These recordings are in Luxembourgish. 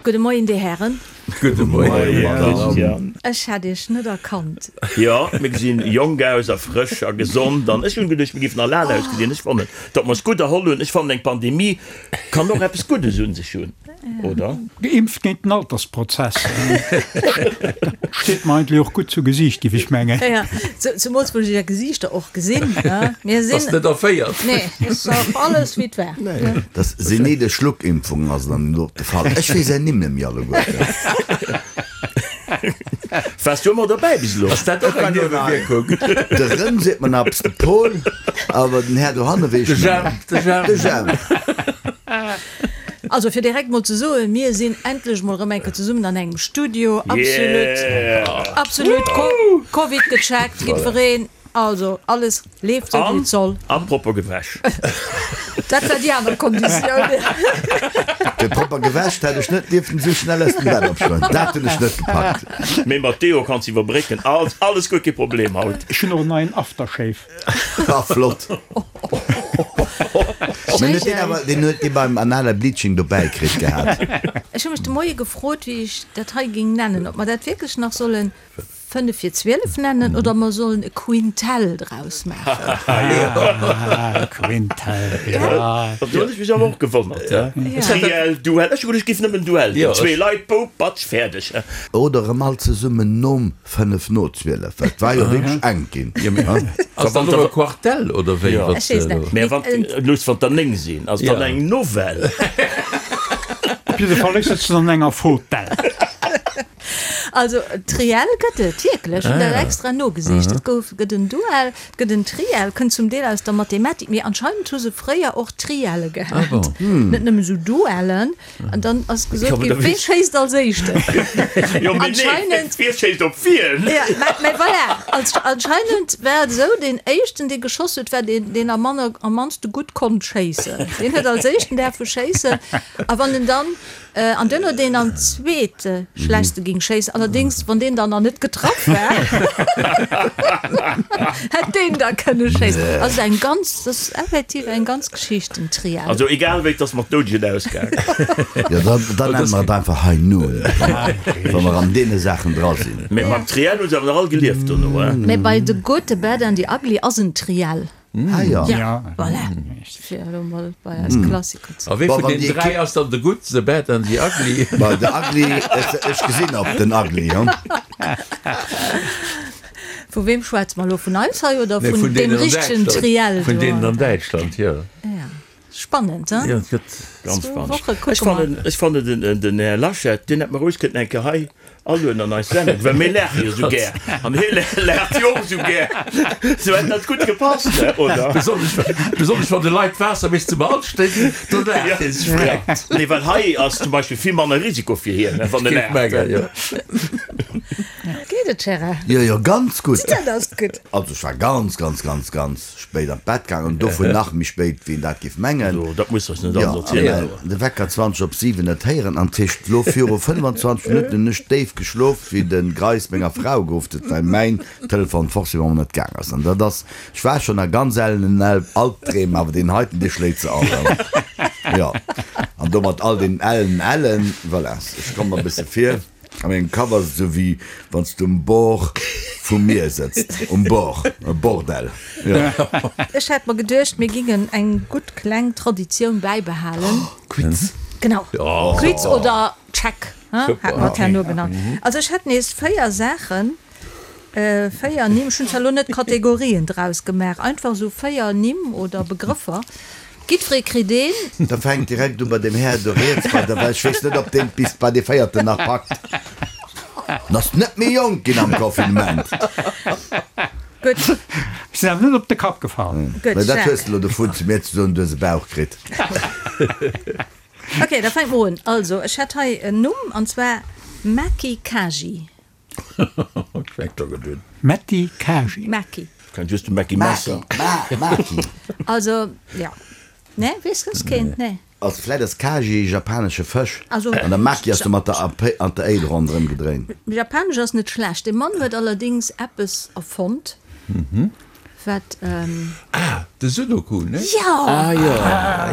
Gudde Moien, Dir Hären. Gudde Moien, Madame. Ech hätt Iech net erkannt. Jo, mir gesinn jonk aus a frësch a gesond an ech hunn geduecht, mir géifen al ausgesinn. Ech fannen, datt mer eis gutt erholl hunn. Ech fannen, eng Pandemie kann och eppes Guddes un sech hunn, oder? Geimpft géint den Altersprozess. Dat steet mer eigentlech och gutt zu Gesiicht, géif ech mengen. Jo, zemools wou ech Är Gesiichter och gesinn. Mir sinn. Ass net erféiert. Nee, ass och alles wéi et war. Dass senile Schluckimpfungen ass dann elo de Fall. Ech weess är Nimm net méi alleguerten. Waars du ëmmer derbäi bis elo? Ass dat och eng Niewewierkung? De Rëm seet mer nach eppes, de Paul, awer den Här dohanne weess ech net méi. De Jemp. De Jemp. Also fir direkt mol ze soen, mir sinn endlech mol erëm eng Kéier zesummen an engem Studio. Absolut, absolut Covid gecheckt, jiddwereen. Also alles leeft sou wéi et soll. An propper gewäsch. Dat war déi aner Konditioun. Fir propper gewäsch hätt ech net dierften esou schnell aus dem Bett opstoen. Dat hunn ech net gepackt. Mee mat Deo kanns iwwerbrécken. Alles, alles guer kee Problem haut. Ech hunn och en neien Aftershave. Ah flott. Mee huet deen awer, deen huet dee beim anale Bleaching dobäi kritt gehat. Ech hu mech de Moie gefrot, wéi ech dat hei géing nennen, ob mer dat wierklech nach sollen 5 vir 12 nennen oder mer sollen e Quintell draus maachen. Quintell, jo. Do hunn ech mech awer och gewonnert. Triell, Duell, ech hu geduecht, et géif nëmmen Duell ginn, zwee Leit, boup, batsch, fäerdeg. Oder erëm all zesummen nom 5 no 12, well et war jo wierklech enk ginn. Ass dat elo e Quartell oder wéi? Ech weess net. Mä wann, looss, wann der 9 sinn, ass dann eng Novell. Op jidde Fall, ech sëtzen an enger Fotell. Also Triell gëtt et wierklech, hunn dat extra nogesicht. Et gouf, gëtt en Duell, et gëtt en Triell, kënnt zum Deel aus der Mathematik, mee anscheinend hu se fréier och Trielle gehat, net nëmmen esou Duellen. An dann ass gesot ginn, wee schéisst als éischten? Anscheinend. Wie schéisst op wien? Ja, mä voilà, anscheinend war et esou, deen éischten, dee geschoss huet, war deen, deen am manner, am mannste gutt konnt schéissen. Deen huet als éischten däerfe schéissen. A wann en dann An duerno deen am zweete schlechtste ging schéissen. Allerdéngs, wann deen dann nach net getraff war, hätt deen da kënne schéissen. Also eng ganz, dat ass effektiv eng ganz Geschicht, den Triell. Also egal wéi, et ass mat Doudegen ausgaangen. Jo, da, da nenne mer et einfach High Noon, wa mer an deene Saachen dra sinn. Mee mam Triell hu se awer nach all gelieft dono, he? Mee bei The Good, The Bad and The Ugly ass en Triell. Ah jo. Ja, voilà. Fir elo mol bei eis Klassiker ze. A wee vun den 3 ass dann The Good, The Bad and The Ugly? Bah, The Ugly, ech gesinn op den Ugly, jo. Vu weem schwätze mer elo? Vun eis hei oder vun deem richtegen Triell do? Vun deenen an Däitschland, jo. Ja. Spannend, hein? Jo, et gëtt ganz spannend. Ech fannen, ech fannen den, den Här Laschet, deen hätt mer roueg kënnten eng Kéier hei alueden an eis Sendung, well mir laache jo sou gär an hie laacht jo och sou gär. Sou hätt dat gutt gepasst, ne, oder? Besonnesch, besonnesch wann de Leit d'Waasser bis zum Hals steet, do laacht hie sech vreckt. Nee, well hei ass zum Beispill vill manner Risiko fir hien, ne, wann e Géif laacht. mengen, jo. Geet et, Gérard? Jo, jo, ganz gutt. Dat ass gutt. Also ech war ganz, ganz, ganz, ganz spéit an d'Bett gaangen an dovun nach méi spéit wéi een dat géif mengen. Jo, dat muss eis net alles erzielen. Jo, de Wecker 20 op 7 net héieren an tëscht lo viru 25 Minutten hunn ech déif geschlof wéi de Greis menger Frau geruff huet, well mäin Telefon forcément net gaang ass. An dat ass, ech war schonn a ganz ellenen Albdreem, awer deen heiten dee schléit se all an. Jo, an domat all den ellen Ellen, voilà, ech komm mer e bësse vir. A mengem Kapp ass et esou wéi wann s du um Bord vum Mier sëtzt. Um Bord, e Bordell, jo. Ech hat mer geduecht, mir gingen eng gutt kleng Traditioun bäibehalen. Quiz. Genau, Quiz oder Check, hat mer et herno genannt. Also ech hätt nees 4 Saachen. 4 Nimm, ech hunn zwar elo net Kategorien draus gemaach, einfach esou 4 Nimm oder Begrëffer. Jiddweree kritt een. Da fänkt direkt u bei deem Här do riets bei der, well ech weess net, ob deen bis bei dee véierten nach packt. En ass net méi jonk ginn am Confinement. Gutt. Ech sinn awer net op de Kapp gefall. Gutt, Mä dat Jacques. hues de elo dovun, zu mir ze soen, du hues e Bauch kritt. Ok, da fänke mer un. Also, ech hätt hei en Numm, an zwar Maki Kaji. Metti Kaji. Maki. Kennt just de Mackie Messer. Maki. Also, ja. Nee, weess soss keen? Nee. Also vläit ass Kaji e japanesche Fësch Also, an der Maki ass do mat der A an der Éi ronderëm gedréint. Japanesch ass net schlecht. Dee Mann huet allerdéngs eppes erfonnt, wat. Ah, de Sudoku, ne? Jo! Ah, jo,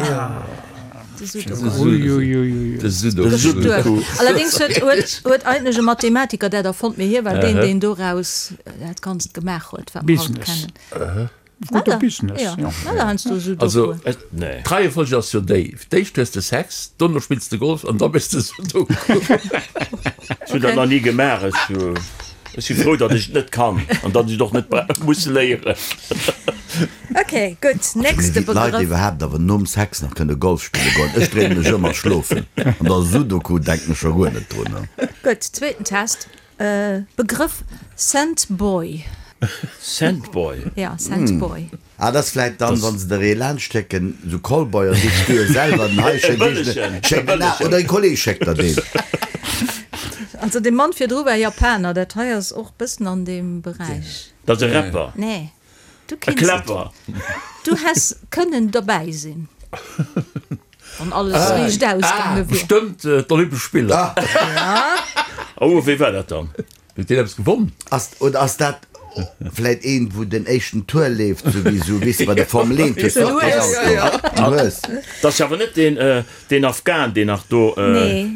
jo. De Sudoku. De Sudoku. Allerdéngs huet, huet, huet eigentlech e Mathematiker dat erfonnt, mee hie war deen, deen doraus dat Ganzt gemaach huet, wat mer haut kennen. Gudde Business, jo. Also, d'Reiefolg ass jo déi, D'éischt hues de Sex, dono spills de Golf an da méchs de Sudoku. Ech hunn dat nach ni gemaach. Ech si frou, datt ech et net kann an datt ech et och net muss léieren. Ok, gutt, nächste Wéi d'Leit Begrëff. iwwerhaapt awer nom Sex nach kënne Golf spille goen. Ech dréinen mech ëm a schlofen. An da Sudoku denken ech scho guer net drun. Gutt, zweeten Test. Begrëff Scentboy. Scentboy? Ja, Scentboy. Ah, dat ass vläit dann, wann se der ee laanscht schécken, sou Callboy, an sichs du e selwer den hei, schéck ech en, schéck en, oder e Kolleg schéckt der deen. Also dee Mann virdru war Japaner, dat hei ass och bëssen an deem Beräich. Dat ass e Rapper? Nee. Du E kinns et. Kläpper. Du häss kënnen derbäi sinn, wann alles riicht ausgaange wier. Bestëmmt d'Olympesch Spiller. Ja. Oh, wéi war dat dann? Huet deen eppes gewonn? Ass, oder ass dat vläit een, wou den éischten Tour leeft, sou wéi sou, weess de, bei der Formel 1, hues de och deen Auto, den Hues. Dat ass awer net deen, deen Afghan, deen nach do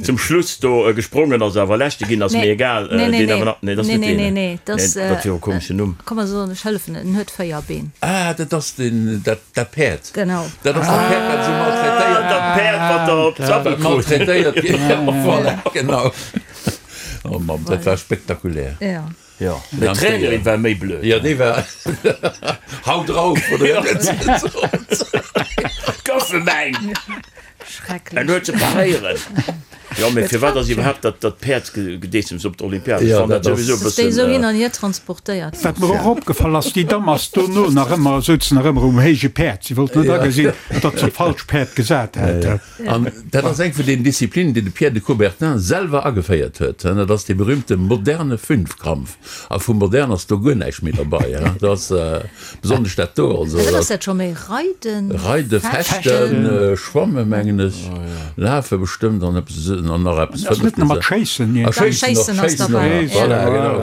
zum Schluss do gesprongen ass, awer Leschte ginn ass, mee egal, deen awer nach, nee, dat ass net deen, nee, dat wier e komeschen Numm. Komm mer soen, ech hëllefen, en huet 4 Been. Ah, dat ass deen, dat, dat Päerd. Genau. Dat ass dat Päerd, wat esou maltraitéiert. Dat Päerd, wat der op d'Sappel krut. Maltraitéiert ginn, voilà, genau. Oh Mamm, dat war spektakulär. Ja. Jo, mee d'Trainerin war méi blöd. Jo, déi war Hau drauf, oder wéi huet se gesot? Goufe mäin! Schrecklech. En huet se paréieren. Jo, mee firwat ass iwwerhaapt dat dat Päerdsgedeessems op d'Olympiad? Ech Jo, fannen dat dat ass. souwisou e Dass déi bëssen. esou hin an hier transportéiert Wat mer och opgefall ass, déi Damm ass dono nach ëmmer, souz nach ëmmer um héije Päerd. Si wollt net agesinn, datt se op falscht Päerd gesat hat. An dat ass eng vun den Disziplinen, déi de Pierre de Coubertin selwer ageféiert huet. Dat ass dee berühmte moderne Fünfkampf. A vu modern ass do guer näischt méi derbei. Dat ass besonnesch dat do. Also, Wat ass dat scho méi? Reiden? Reiden, Fechten, Schwammen, mengen ech, Lafe bestëmmt an eppes an nach eppes Ass net nach mat Schéissen? A Schéissen och, Schéissen och nach. Voilà, genau.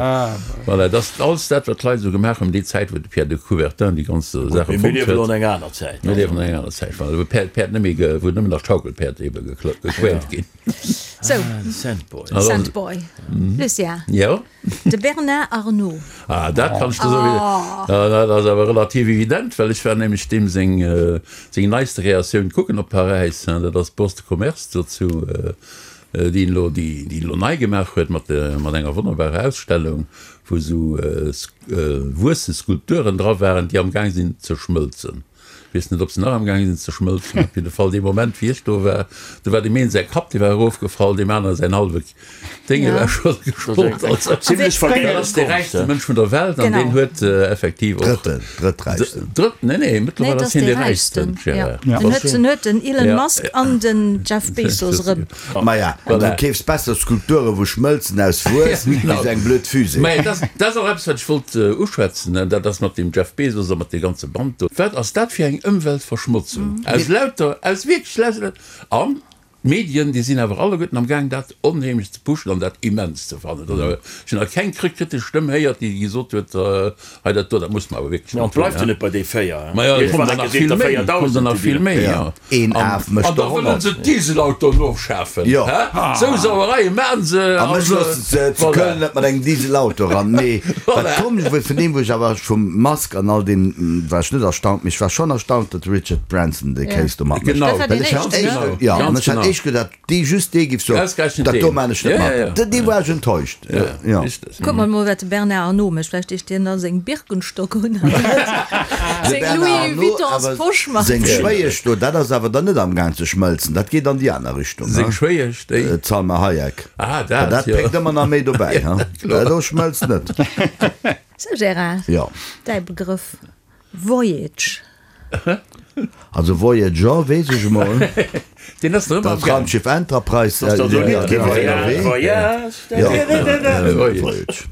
Voilà, dat ass alles dat, wat d'Leit esou gemaach hunn déi Zäit, wou de Pierre de Coubertin déi ganz Saach Mee erfonnt mir liewen huet. an enger aner Zäit. Mir liewen an enger aner Zäit, voilà, wou d'Päerd, d'Päerd net méi, wou nëmmen nach d'Schaukelpäerd ebe gequält ginn. Sou, Sandboy. Sandboy. Lucien. Jo? De Bernard Arnault. Ah, dat kann ech der soen. Ah, dat ass awer relativ evident, well ech war nämlech deem seng, seng neiste Kreatioun kucken op Paräis, dat ass d'Bourse de Commerce dozou, déi en elo, déi en elo nei gemaach huet mat, mat enger wonnerbarer Ausstellung, wou esou wuesse Skulpturen dra waren, déi amgaang sinn ze schmëlzen. Weess net, ob se nach amgaang sinn ze schmëlzen. Op jidde Fall, dee Moment, wéi ech do war, do war deem een säi Kapp, dee war erofgefall, deem anere säin hallwe Dénge war scho gesprot. Also, Zimlech dat ass dee räichste Mënsch vun der Welt an deen huet effektiv och. Drëtten, drëtträichsten. Drëtt, nee, nee, mëttlerweil ass hien dee räichsten, Gérard. En huet, en huet den Elon Musk an den Jeff Bezos erëm. Maja, du keefs besser Skulpture wou schmëlzen aus Wuess wéi sou eng blöd Fusée. Mä dat ass och eppes wat ech wollt uschwätzen, dat ass mat dem Jeff Bezos a mat deem ganze Band do. Wat ass dat fir eng Ëmweltverschmotzung aus lauter, aus wierklech lauter, an d'Medien déi sinn awer alleguerten am gaang dat onheemlech ze pushen an dat immens ze fannen. Ech hunn nach keng kritesch Stëmm héiert déi gesot huet, Hei dat do, dat muss mer awer wierklech An net hunn, bleift jo hä? net bei déi 4. Maja, et kommen der nach vill méi, et kommen der nach vill méi, jo. Een Af mécht An da der wëllen 100. se d'Dieselautoen ofschafen, Jo. hä? Sou Sauereie maachen se. A mech loosse se zu Voilà. Köln net mat engem Dieselauto eran. Mee wat Voilà. komesch wuar, vun deem wou ech awer vum Musk an all deem war ech net erstaunt, mee ech war schonn erstaunt, datt de Richard Branson dee Kéis do matmécht. Genau. Dat war Well deen ech hat éischten, ne? éischt, jo, an Ganz ech hat genau. éischt gedacht, Dee just dee giff soen, Ausgerechnet dat do deen. maan ech net Ja, mat. ja, ja. Dee dee war ech enttäuscht. Ja, Ja. richtig. Kuck mer mol wat de Bernard Arnault mécht, vläicht deet dien da seng Birkenstock un an De seng Bernard Louis Arnault Vuittons awer Posch mat. seng Schwéiesch do, dat ass awer dann net am Gaang ze schmëlzen, dat geet an déi aner Richtung, Seng ha? Schwéiesch, déi? D'Salma Hayek. Ah, dat, Dat jo. péckt ëmmer nach méi dobäi, ha? Kloer. Dat do schmëlzt net. Sou Gérard, Jo. däi Begrëff Voyage. Also Voyager weess ech emol. Deen ass nach ëmmer am Dat Gaang. Raumschiff Enterprise, Ass dat esou dat lidd war ënnerwee. Voyage, Jo, Voyage. Voyage.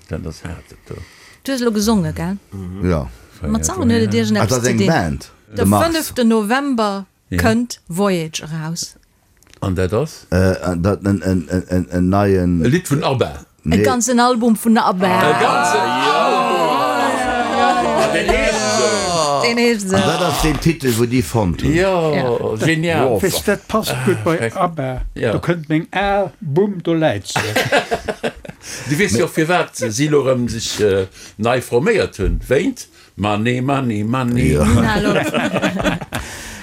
Dat ass haart, dat do. Du hues elo gesonge, gell? Jo. Mat Sangen huet et Ah, dat iergendeppes ass ze eng dinn. Band, De de Mars. fënneften November kënnt Voyage eraus. An dat ass? Dat en, en, en, en neien. E Lidd vun ABBA. E ganzen Album vun ABBA. E ganzen Album! Ah, deen heescht esou. Deen heescht esou. An dat ass deen Titel, wou déi fonnt hunn. Jo, genial. Weess, dat passt gutt bei ABBA. Do kënnt meng al, bumm, do läit se. Du weess jo och firwat si elo erëm sech nei forméiert hunn, wéint Money, money, money.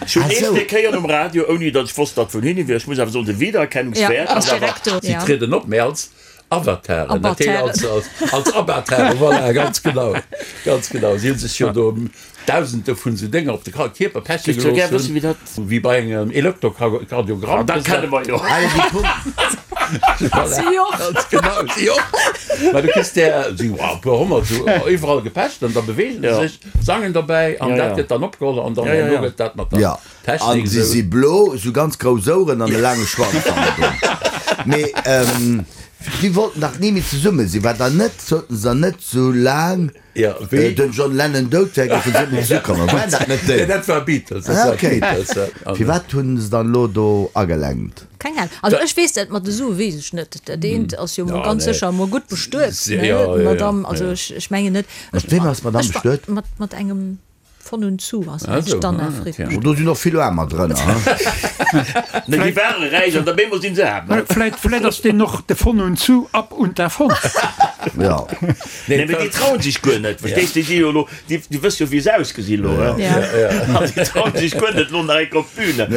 Ech hunn eescht déi Kéier um Radio, ouni datt ech wosst, datt vun hinne wier. Ech muss awer soen, de Wiedererkennungswäert ass awer. Si trieden op, mee als Avataren, dat heescht als, als Avataren, voilà, ganz genau, ganz genau. Si hu sech jo do Dausende vun esou Dénger op de Kierper peche gelooss hunn, wéi bei engem Elektrokardiogramm. Dat kenne mer jo. Voilà, ganz genau, si och. Mä du kriss där, si e puer honnert esou iwwerall gepecht an da beweegen se sech, sangen dobäi an dat gëtt dann opgeholl an dann herno gëtt dat mat der Technik esou. An si si blo, esou ganz grouss Oueren an e laange Schwanz hannendrun. Mee déi wollten dach ni méi zesumme sinn, war da net, sollten se dann net sou laang den John Lennon dout wär, géifen se net méi zesuckommen? Waren dat net déi? Nee, dat war Beatles. Dat war Beatles, ja. Firwat hunn se dann elo do agelenkt? Keng Ahnung. Also ech weess dat mat de Sue weess ech net. Dat eent ass jo mol ganz sécher emol gutt bestuet, ne, d'Madame. Also ech mengen net. Mat weem ass d'Madame bestuet? Mat engem Von und zu ass eng d'Anna Frick. Oh, do sinn och vill Aarmer drënner, he? Nee, déi ware räich an op eemol sinn se aarm. Vläit, vläit ass deen och de Von und zu ab und davon. Jo. Nee, mee déi trauen sech guer net, verstees de? Déi si jo elo, déi, déi wësse jo, wéi se ausgesinn elo, he? An déi trauen sech guer net elo nach eng Kéier op d'Bühne.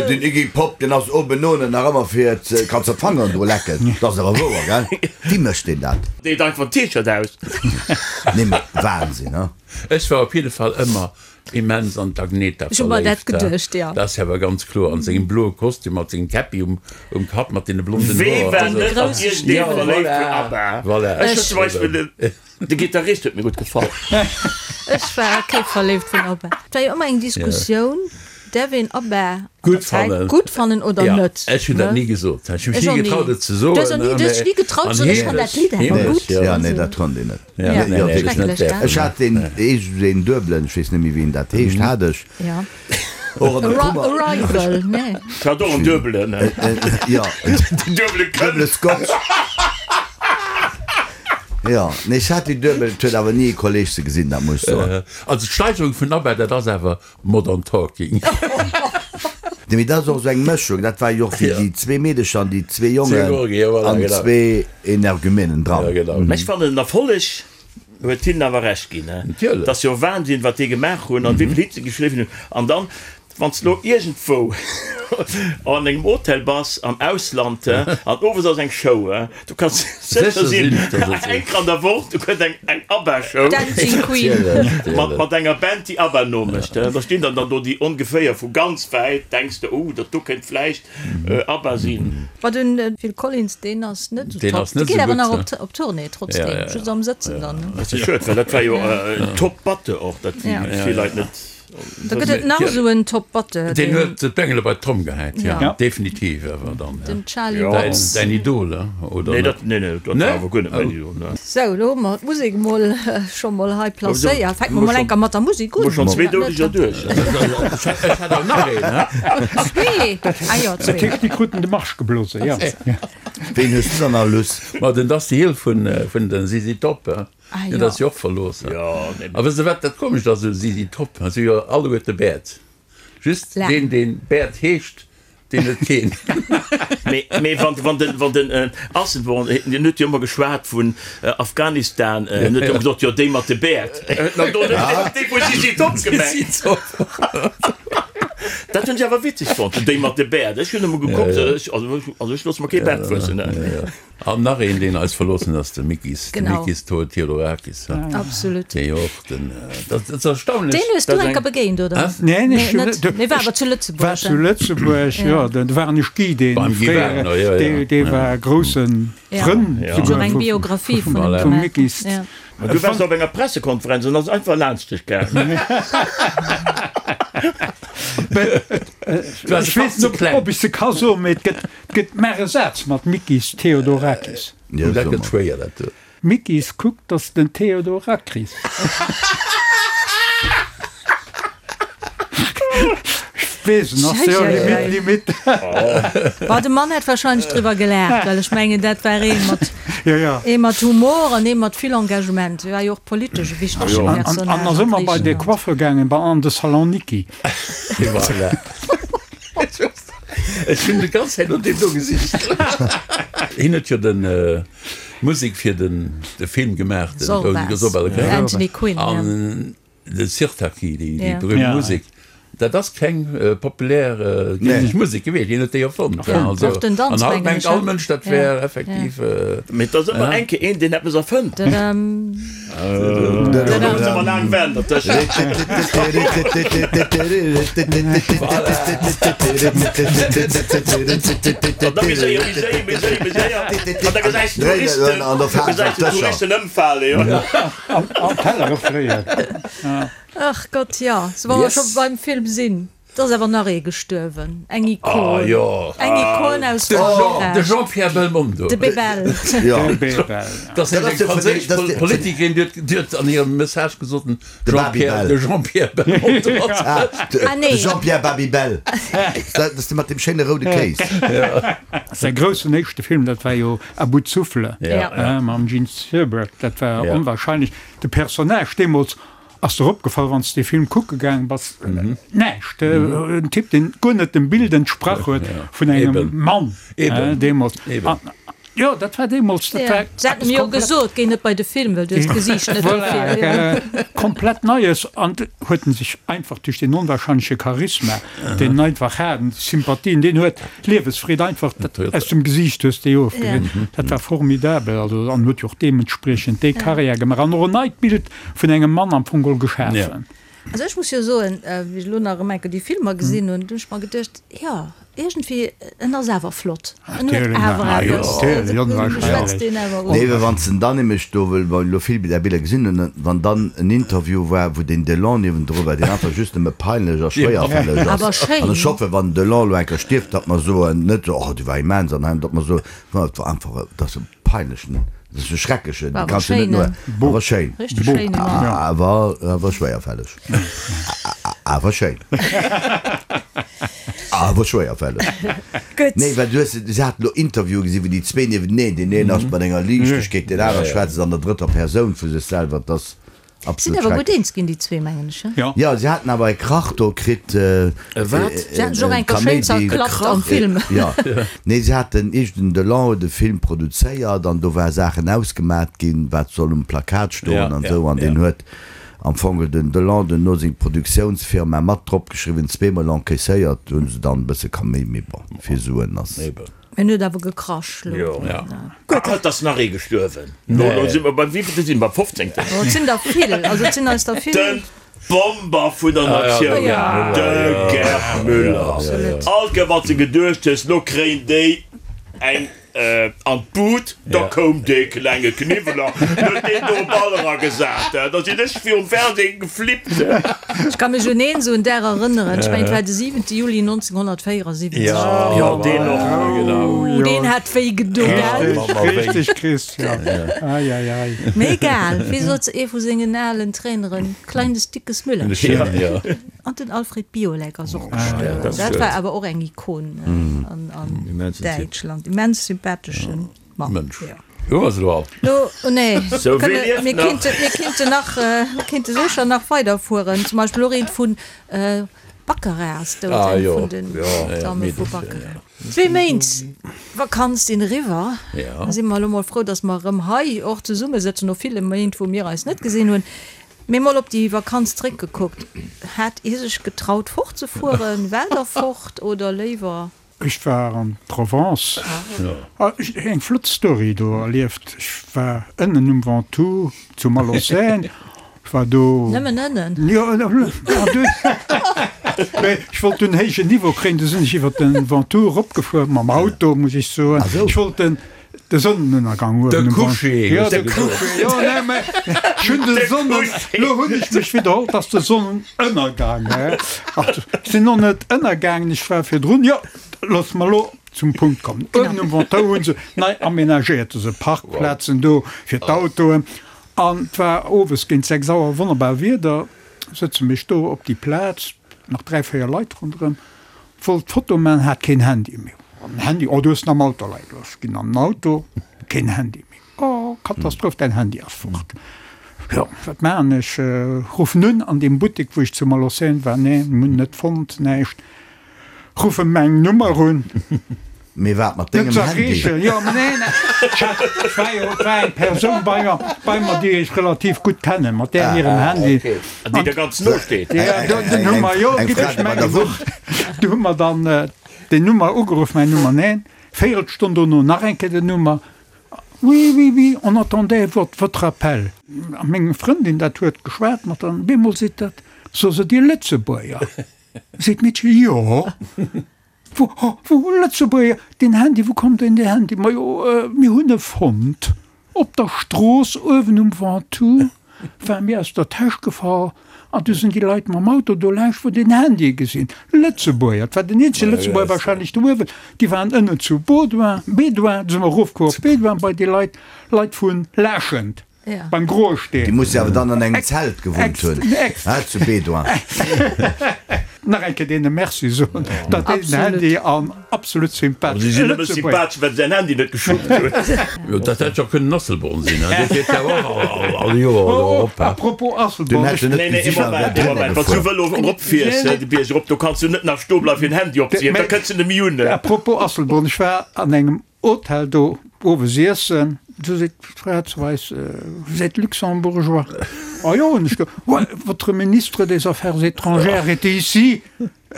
Den Iggy Pop, deen ass obenone nach ëmmer fir ze, kanns de d'Fangeren dru lecken. Dat ass awer wouer, gell? Wéi mécht deen dat? Deet einfach den T-Shirt aus. Nee, mee Wahnsinn, he? Ech war op jidde Fall ëmmer immens an d'Agneta Ech hu mer dat verléift. geduecht, jo. Dat ass jo awer ganz kloer, an sengem bloe Kostüm, mat sengem Käppi um um Kapp, mat deene blonden Wee Hoer. war Also, net an Grousse iergendee ja, verléift vun voilà, ABBA? voilà. Ech hunn zum Beispill den, de Gittarist huet mir gutt gefall. Ech war kee verléift vun ABBA. Et war jo ëmmer eng Diskussioun, däerf een ABBA an der Gutt Zäit fannen. gutt fannen oder Ja, net, ech hunn dat ne? ni gesot. Ech hu mech Ech ni och ni. getraut, et ze soen. Du hues och ni, du hues dech ni getraut ze soen, ech fannen dat Lidd awer Heemlech, gutt. ja. Ja, nee, dat konnt een net. Ja, Ja, nee, nee, schrecklech, gell? Ech hat deen deen duebelen, ech weess net méi wéi en dat heescht, hat ech och an der Kummer. Arrival, nee. Ech hat och en duebelen. Jo, Den duebele Kënn. duebele Scotch. Jo, nee, ech hat déi duebel, et huet awer ni e Kolleg se gesinn, dat muss ech soen. Also d'Steigerung vun ABBA, dat ass awer Modern Talking. Nee, mee dat ass och esou eng Mëschung. Dat war jo och fir déi zwee Meedecher an déi zwee Jongen an zwee Energumenen dran. Mä ech fannen den Erfolleg huet hinnen awer Recht ginn. Et ass jo Wahnsinn, wat déi gemaach hunn an wéi vill Hits se geschriwwen hunn. An dann, wann s de elo iergendwou an engem Hotel bass am Ausland an owes ass eng Show, Du kanns sécher sinn, eng Kéier an der Woch, do kënnt eng eng ABBA-Show. Dancing Queen. Mat, mat enger Band, déi ABBA nomécht. Da stinn dann dann do déi ongeféier vu ganz wäit, denks de, oh, dat do kéint vläicht ABBA sinn. Ma den Phil Collins, deen ass net esou top. Dee geet awer nach op, op Tournée trotzdem, just am Sëtzen dann. Dat ass schued, well dat war jo en Top-Batteur och, dat vill Leit net. Da gëtt et nach esou en Top Batteur. Deen huet d'Bengele bei d'Tromm gehäit, jo, definitiv awer dann. Den Charlie Watts. Däin Idol, oder net? Nee, nee, dat war awer guer net mäin Idol, ne. Sou, elo hu mer d'Musek emol scho mol hei placéiert. Fänke mer mol enker mat der Musek un. Hu schonn zwee Doudeger duerch. Ech hat awer nach een, he? Zwee? Ah jo, zwee. Dat heescht, déi kruten de Marsch geblose, jo. Ween hues du dann nach, Luss? Ma den Dusty Hill vun den ZZ Top, he? Ah, Jo, dat ass jo och verlooss. Jo, nee. A wësst Der wat dat Komescht ass u ZZ Top? Si hu jo alleguerte Bäert. Just deen, deen Bäert heescht, deen huet keen. Mee, mee wann, wann den, wann den Asselborn, deen huet jo ëmmer geschwat vun Afghanistan, en huet jo ëmmer gesot, jo déi mat de Bäert. Huet en do net déi vu ZZ Top gemengt? Dat hunn ech awer witzeg fonnt, déi mat de Bäert. Ech hunn ëmmer gekuckt, ech, also ech loosse mer kee Baart wuessen. An nach een, deen eis verloossen ass, de Mikis, de Genau. Mikis Theodorakis. Absolut. Dee jo och den, dat ass erstaunlech. Deen hues du dass eng eng. Kéier begéint, oder? Hä? Neen, Nee, ech hunn net. net. Mee war awer zu Lëtzebuerg, War zu hein? Lëtzebuerg, jo. Do war ech Guy, dee Beim Guy fréiere, Wagner, jo, jo. dee, dee war grousse Ja. Frënn Ja. Huet souguer och eng vu, Biographie vun him Voilà. vum gemaach. Mikis. Ja. Ma du waars op enger Pressekonferenz an ass einfach laanscht dech gaangen. Du waars Ech e weess Patt ze net, kleng. ob ech se ka soen, mee et gëtt, Et gëtt mar e Saz mat Mikis Theodorakis. Jo, dat gëtt schwéier, dat do. Mikis, kuck, 't ass den Theodorakris. D'Weesen ass jo limite, limite. Bah, de Mann hätt wahrscheinlech driwwer gelaacht, well ech mengen, dat war ee mat, ee mat Humor an ee mat vill Engagement. Hie war jo och politesch e wichtege Personnage. An ass ëmmer bei de Coiffeur gaangen, bei an de Salon Niki. Voilà. Ech hunn déi ganz Zäit no deem do gesicht. Hien huet jo den Musek fir den de Film gemaach, den Zorba, Anthony Quinn, ja. De Sirtaki, déi berühmt Musek, dat ass keng populär griichesch Musek gewiescht, hien huet déi erfonnt. Also, an haut mengt all Mënsch, dat wär effektiv. Mee et ass ëmmer eng Kéier een, deen eppes erfënnt. Da muss ëmmer laang waarden dertëschent. An da méi séier, méi séier, méi séier, méi séier. An da gesäis de Touristen, da gesäis de Touristen ëmfalen, jo. An Tellere fréien. Ach Gott, jo, sou wa mer scho beim Film sinn, et ass awer nach ee gestuerwen, eng Ikon, eng Ikon aus Frankräich. De Jean-Pierre Belmondo. De Bebel. De Bebel. Dat ass eng franséisch Politikerin, déi huet an hirem Message gesot, den Jean-Pierre, de Jean-Pierre Belmondo ass dat. Ah nee. De Jean-Pierre Babybel. Dat ass dee mat deem schéine roude Kéis. Säi groussen éischte Film, dat war jo À bout de souffle mam Jean Seberg, dat war onwahrscheinlech. De Personnage deemools ass der opgefall, wann s de dee Film kucke gaang bass, näischt. En Typ, deen guer net dem Bild entsprach huet vun engem Mann deemools. Jo, dat war deemools, dat war Se haten mir jo gesot, géi net bei de Film, well du hues d'Gesiicht net dofir. Voilà, komplett Neies. An huet en sech einfach duerch deen onwahrscheinleche Charisma, deen en einfach hat, an déi Sympathie, deen huet Liewesfreed einfach aus dem Gesiicht hues de ofgesinn. Dat war formidabel. Also an huet jo och deementspriechend déi Karriär gemaach an och en neit Bild vun engem Mann am Fong geholl geschafen. Also ech muss jo soen, wéi ech elo nach erëm eng Kéier déi Filmer gesinn hunn, hunn ech mer geduecht, jo, iergendwéi, en ass awer flott, en huet awer eppes, schwätzt deen awer un. Nee, well wann s de dann nämlech do, well mer elo vill där Biller gesinn hunn, wann dann en Interview war, wou deen Delon niewendru war, deen einfach just nëmme peinlech a schwéierfälleg ass, an ech hoffen, wann den Delon elo eng Kéier stierft, datt mer soen, net esou, oh, dee war immens an hei, datt mer soen, no, et war einfach, et ass e peinlechen, et ass e schrecklechen, dee kanns du net no, awer schéin, awer, awer schwéierfälleg, awer schéin. Awer schwéierfälleg. Gutt. Nee, well du hues, se haten elo Interviewen gesinn, wou déi zwee niewenteneen, deen een ass mat enger Liichtegkeet, deen aner schwätzt an der drëtter Persoun vu sech selwer. Et ass Sinn absolut awer gutt schrecklech. eens ginn, déi zwee, mengen ech, he? Jo. Jo, se haten awer e Krach do kritt, e wat? Se haten sech och eng Kéier schéin zerklappt am Film. Jo. Nee, se haten iergend en Delon huet e Film produzéiert an do war Saachen ausgemat ginn, wat soll um Plakat stoen an esou, an deen huet Am Fong huet den Delon duerno seng Produktiounsfirma mat drop geschriwwen, zweemol encaisséiert hunn se dann e bësse Kaméi, mee bon, fir Suen ass. En huet awer gekrasch lo. Gutt. Et ass nach ee gestuerwen. Lo si mer beim wéivillte sinn mer? Fofzéngten? Oh, et sinn der vill, also et sinn eis der vill. Den Bomber vun der Natioun, de Gerd Müller. All Kéier wann s de geduecht hues, lo kréien déi eng An d'Bud, da koum dee klenge Kniwweler, huet deen do e Ball eragesat, da sinn ech virum Fernseh geflippt. Ech ka mech un een esou en Dag erënneren, ech mengen et war de 7 Juli 1974. Jo, deen och, genau. Ooh, deen hat wéi gedo, gell? Richteg, Christian, ei, ei, ei. Mee egal, wéi sot ee vu sengen alen Traineren, kleines dickes Müllerchen. An den Alfred Biolek ass och gestuerwen. Dat war awer och eng Ikon an Däitschland. Immens sympathesche Mann. Mënsch. Hu mer se elo all? Lo, oh nee, mir kinnten, mir kinnten nach, mir kinnte sécher nach weiderfueren. Zum Beispill och eent vun Baccarat ass dout, eng vun den Damme vu Baccarat. Zwee Méint Vakanz sinn eriwwer. Da si mer elo mol frou, datt mer erëm hei och zesummesëtzen no ville Méint, wou mir eis net gesinn hunn. Mee mol op déi Vakanz zréckgekuckt, hat Dir sech getraut fortzefueren? Waart der fort oder léiwer? Ech war an Provence, eng flott Story do erlieft. Ech war ënnen um Ventoux zu Malaucène, ech war do. Nëmmen ënnen? Jo, an dunn, mee ech wollt dunn héijen Niveau kréien, du sinn ech iwwer de Ventoux eropgefuer, mam Auto muss ech soen. Ech wollt den De Sonnenënnergang uewen um Coucher, Jo, de Coucher, jo, nee, mä ech hunn de Sonnen, lo hunn ech mech widderholl, 't ass de Sonnenënnergang, hä? Ach, ech sinn och net ënnergaangen, ech war virdrun, jo, looss mer lo zum Punkt kommen. Uewen um Ventoux hu se nei amenagéiert, esou Parkplazen do fir d'Autoen, an 't war owes géint 6 Auer, wonnerbar Wieder, sëtze mech do op déi Plaz, nach 3, 4 Leit ronderëm. Wollt d'Foto man, hat keen Handy méi. An Handy, oh du hues en am Auto leie gelooss. Ginn an den Auto, keen Handy méi. Oh Katastroph, däin Handy ass fort. Jo, wat maachen ech? Ruffen un an deem Buttek wou ech zu Malaussène war, nee, hunn net fonnt, näischt. Ruffen meng Nummer un. Mee wat mat dengem Handy? Jo, mä nee, et war jo, et war eng Persoun bei mer, bei mer, déi ech relativ gutt kennen, mat där hirem Handy. An déi der ganz no steet. Ja, dunn hu mer, jo, giff ech mengen, du hu mer dann déi Nummer ugeruff, mäin Nummer, neen, Véierelstonn dono nach eng Kéier den Nummer, oui, oui, oui, on attendait votre appel. A meng Frëndin, dat huet geschwat mat der, op eemol seet dat, So se Dir Lëtzebuerger? Seet d'Meedche, jo. Wou, wou, Lëtzebuerger, deen Handy, wou kommt deen Handy? Majo, mir hunn e fonnt op der Strooss uewen um Ventoux, war mir aus der Täsch gefall an du sinn déi Leit mam Auto do laanscht, wou den Handy gesinn. Lëtzebuerger, et war den eenzege Lëtzebuerger wahrscheinlech do uewen, déi waren ënnen zu Baudouin, Bédouin, du si mer erofkomm op Bédouin bei déi Leit, Leit vu Laaschent. Beim Groe Steen. Déi musse awer dann an engem Zelt gewunnt hunn, he, zu Bédoin. Nach eng Kéier deene Merci soen, datt déi den Handy an absolut sympathesch. Si sinn nëmme sympathesch, well se säin Handy net geschuppt hunn. Jo, dat hätt jo kënnen Asselborn sinn, he, dee fiert jo och all Joer do erop, he. A propos Asselborn, ech. Nee, nee, ee Moment, ee Moment, wann s du Vëlo eropfiers, he, de Bierg erop, do kanns du net nach stoe bleiwen, fir den Handy opzehiewen, da kënns du net méi un, he. A propos Asselborn, ech war an engem Hotel do owes iessen, du seet d'Fra zu eis, Vous êtes luxembourgeois? Ah jo, hunn ech ge, Ouais, votre ministre des Affaires étrangères était ici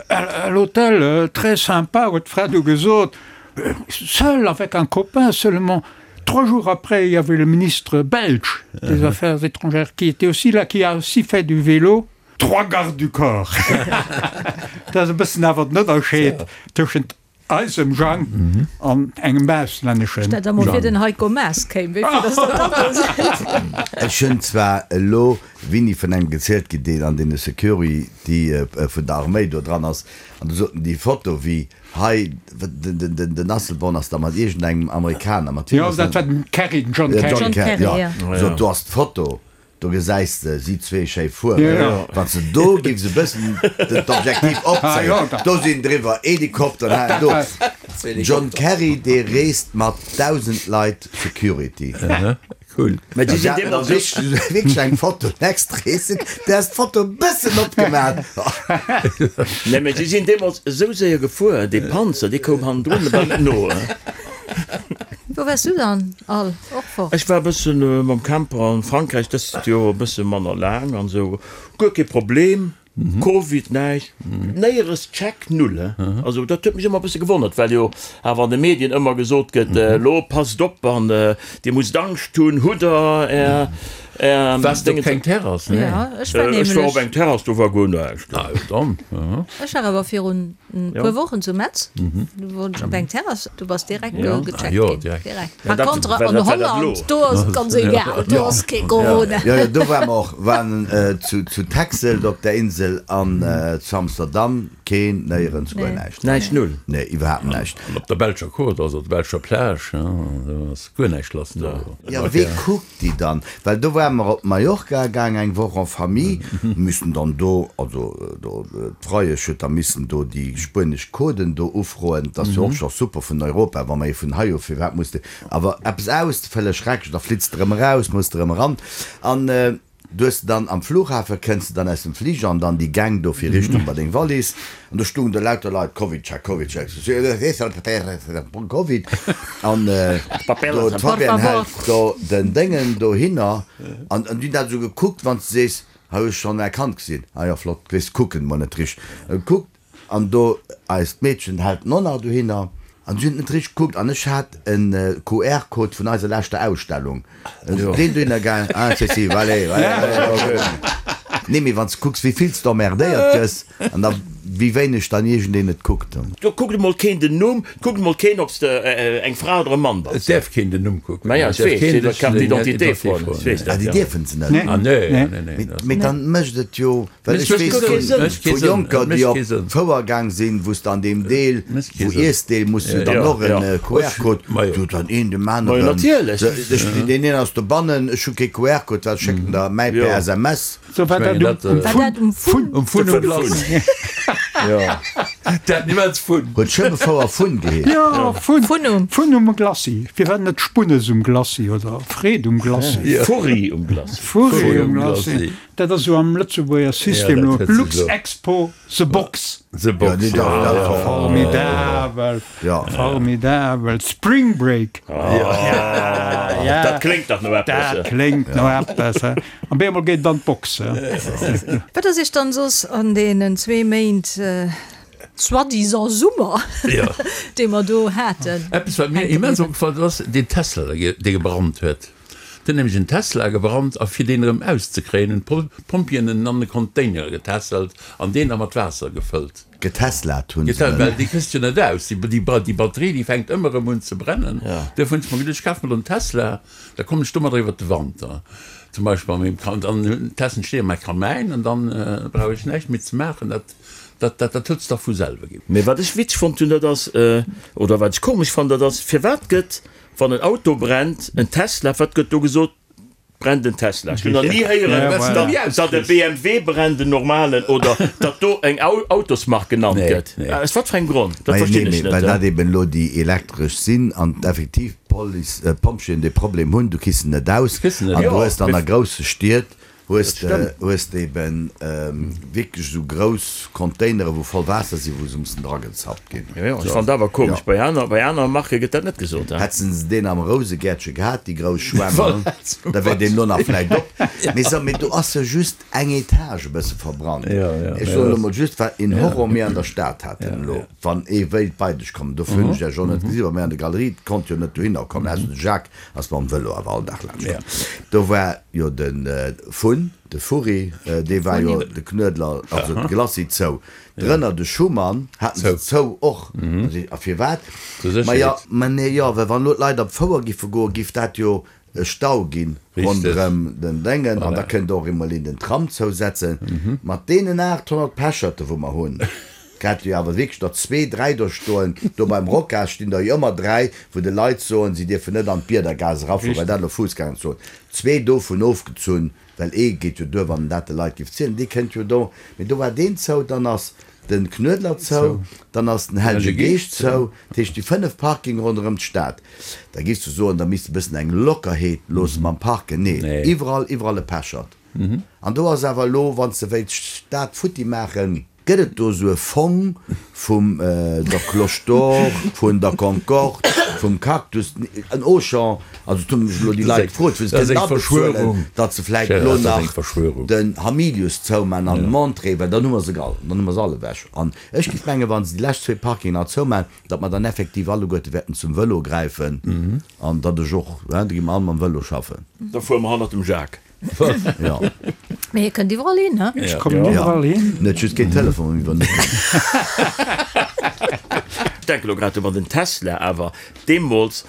à l'hôtel, très sympa, huet d'Fra du gesot, seul avec un copain seulement. Trois jours après, il y avait le ministre belge des Affaires étrangères qui était aussi là, qui a aussi fait du vélo. Trois gardes du corps. Dat ass e bëssen awer den Ënnerscheed tëschent Eisem Jang an engem auslänneschen Stell der mol vir den Heiko Maas kéim, wéi vill dass der dann do sinn. Ech hunn zwar elo wini vun engem gezielt ginn, deen an deene Security vun der Arméi do dran ass, an du soten déi Foto wéi hei den Asselborn ass da mat iergendengem Amerikaner, mat wiem ass dat? Jo, dat war den Kerry, den John Kerry. John Kerry, jo. Sot do ass d'Foto. Do gesäis de si zwee schéi fueren. Wann s de do giffs e bëssen d'Objektiv opzéien, do sinn driwwer Helikopteren hei an do. John Kerry, dee reest mat 1.000 Leit Security. Cool. Mä déi sinn deemools wierklech eng Foto next reesen, där ass d'Foto e bëssen opgemaat. Nee, mä si sinn deemools esou séier gefuer, dee Panzer, dee koum hannendrun bal net no. Wou waars du dann all? Och fort? Ech war e bëssen mam Camper an Frankräich, dëst Joer e bësse manner laang an esou. Guer kee Problem, Covid, näischt, néieres Check, null. Also dat huet mech ëmmer e bësse gewonnert, well jo awer an de Medien ëmmer gesot gëtt, elo passt op an dir musst Angscht hunn, hutt der är, är Waars de op keng Terrass? Nee. Ja, ech war Ech war op eng Terrass, do war guer näischt. Ah jo, dann. Ech war awer virun E puer Wochen zu Metz, do wor ech op eng Terrass, du bass direkt gecheckt ginn. Direkt. Par contre an Holland, do ass et ganz egal, do ass kee Corona. Jo, jo, do ware mer och, waren zu Texel do op der Insel an zu Amsterdam, keen, néierens, guer näischt. Näischt, null? Nee, iwwerhaapt näischt. An op der belscher Côte, also op der belscher Plage, do ass guer näischt lass do. Jo, wee kuckt déi dann? Well do ware mer op Mallorca gaang eng Woch en famille, missen dann do, also do d'Freiesch huet da missen do déi spuenesch Coden do ufroen, dat ass jo och scho super vun Europa, wa mer ee vun hei u, firwat muss de awer eppes ausfëllen, schrecklech, da flitts de erëm eraus, muss de erëm eran an. Du hues de dann am Flughafen, kënns de dann aus dem Fliger an dann déi Gäng do fir Richtung bei deng Wallis an do stungen do lauter Leit, Covid-Check, Covid-Check, Covid an do d'Fabienne hält do den Déngen dohinner an déi hunn dat esou gekuckt, wann s de sees, hei hu ech schonn erkannt gesinn, ah jo flott, weess kucken mol net richteg gekuckt. An do eist Meedchen hält en och nach dohinner. An si hunn et net richteg gekuckt. An ech hat en QR-Code vun eiser leschter Ausstellung. Deen dohinner gaang, ah si si, allez, allez, allez. Nee, mee wann s de kucks, wéi vill s de emmerdéiert gëss an da wéi wéineg dann iergendeen et kuckt. Do kuckt emol keen den Numm, et kuckt emol keen, ob s de eng Fra oder e Mann bass. Et däerf keen den Numm kucken. Maja, ech weess, iwwer d'Carte d'identité froen, ech weess dat, jo. Ah, déi dierfen se net? Ah, nee, nee, nee. Mee dann mécht et jo. Well ech weess vu Jonker, déi op d'Fouer gaang sinn, wou s de an deem Deel, wou Iessdeel, muss du dann och en QR-Code, do huet dann een dem aneren, ech, deen een ass dobannen, ech hu kee QR-Code, wat schéckt en der mäi per SMS? Sou war dat um Fun. Um Fun um Glace. Dat immens Fun. Huet Schëbbefouer Fun geheescht? Jo, Fun. Fun um. Fun um Glacis. Firwat net Spunnes um Glacis oder Freed um Glacis? Furri um Glacis. Furri um Glacis. Dat ass esou am Lëtzebuerger System elo. Luxexpo, The Box. The Box, jo. Formidabel. Formidabel. Spring Break. Dat kléngt dach no eppes. Dat kléngt no eppes. An bemol geet et an d'Box. Wat ass Iech dann soss an deenen zwee Méint soi-disant Summer, dee mer do haten, Eppes wat mir immens opgefall ass, deen Tesla dee gebrannt huet. Et huet nämlech en Tesla gebrannt a fir deen erëm auszekréien hunn d'Pompjeeën en an e Container getässelt an deen da mat Waasser gefëllt. Geteslaat hunn se en. Well déi kriss de jo net aus, déi Batterie déi fänkt ëmmer erëm un ze brennen. Duerfir hunn ech mer geduecht, ech kaf mer elo en Tesla, da kommen ech domadder iwwert de Wanter zum Beispill an mengem, dann testen ech dee a mäi Kamäin an dann brauch ech näischt méi ze maachen. Dat, dat, dat huet sech da vu selwe ginn. Mee wat ech witzeg fonnt hunn, dat ass, oder wat ech komesch fannen, dat ass, firwat gëtt, wann en Auto brennt, en Tesla, wat gëtt do gesot, brennt en Tesla? Ech hunn nach ni héieren, datt e BMW brennt, en normalen, oder datt do eng Autosmark genannt gëtt. Aus wat fir engem Grond? Dat verstinn ech net. Well dat eben elo déi elektresch sinn an effektiv d'Police, d'Pompjeeën dee Problem hunn, du kriss se net aus. An du hues dann a grousse Stied hues de hues de eben wierklech esou grouss Containere wou voll Waasser sinn, wou se mussen dragezappt ginn. Jo, jo, ech fannen dat awer komesch. Bei aner, bei aner Marke gëtt dat net gesot, he? Hätten se deen am Rousegäertche gehat, déi grouss Schwämm, da wär deen elo nach vläicht op. Mee so, mee do ass jo just eng Etage e bësse verbrannt. Ech soen elo mol just, wat een Horror mir an der Stad haten elo, wann ee wéilt bei dech kommen, dofir hunn ech Iech och net gesinn, well mir an der Galerie konnt jo net dohinner kommen, ausser de Jacques ass mam Vëlo awer all Dag laanscht komm. Do war jo de Fun, de Furri, dee war jo de Knuedler, also de Glacis zou. Drënner de Schumann haten se zou och. A firwat? Ma jo, ma nee, jo, well wann elo d'Leit op d'Fouer giffe goen, giff dat jo e Stau ginn ronderëm den Déngen an da kënnt och emol een den Tram zousetzen. Mat deenen 800 Pecherte wou mer hunn, Grad wéi awer wierklech der zwee, dräi do stoen, do beim Rocas stinn der jo ëmmer dräi, wou de Leit soen, si dierfen net an d'Biedergaass erafueren, well dat elo Fuussgängerzon. Zwee dovun ofgezunn, well ee geet jo duer, wann en dat de Leit géif zielen, dee kënnt jo do. Mee do war deen zou, dann ass de Knuedler zou, dann ass den Hellege Geescht zou, dat heescht déi 5 Parkinge ronderëm d'Stad. Da géifs du soen, da misst e bëssen eng Lockerheet loosse mam Parken. Nee, iwwerall, iwwerall e Pechert. An do ass awer elo, wann s de wéilts d'Stad futti maachen, Gëtt et do esou e Fong vum der Cloche d'Or, vun der Concorde, vum Cactus, en Auchan, also et hu mech elo déi Leit gefrot, wou se kënnen abezuelen, datt se vläicht elo nach den Hamilius zouman an Montrée, well dann hu mer se all, dann hu mer se all ewech. An ech géif mengen, wa se déi lescht zwee Parkingen nach zouman, datt mer dann effektiv alleguerte wäerten zum Vëlo gräifen an datt ech och, da gi mer all mam Vëlo schaffen. Da fuere mer hannert dem Jacques. Ja. Mee hie kënnt iwwerall hin, he? Ech kommen iwwerall hin. Net just géint Telefon iwwer net. Ech denke lo grad un, wann den Tesla awer deemools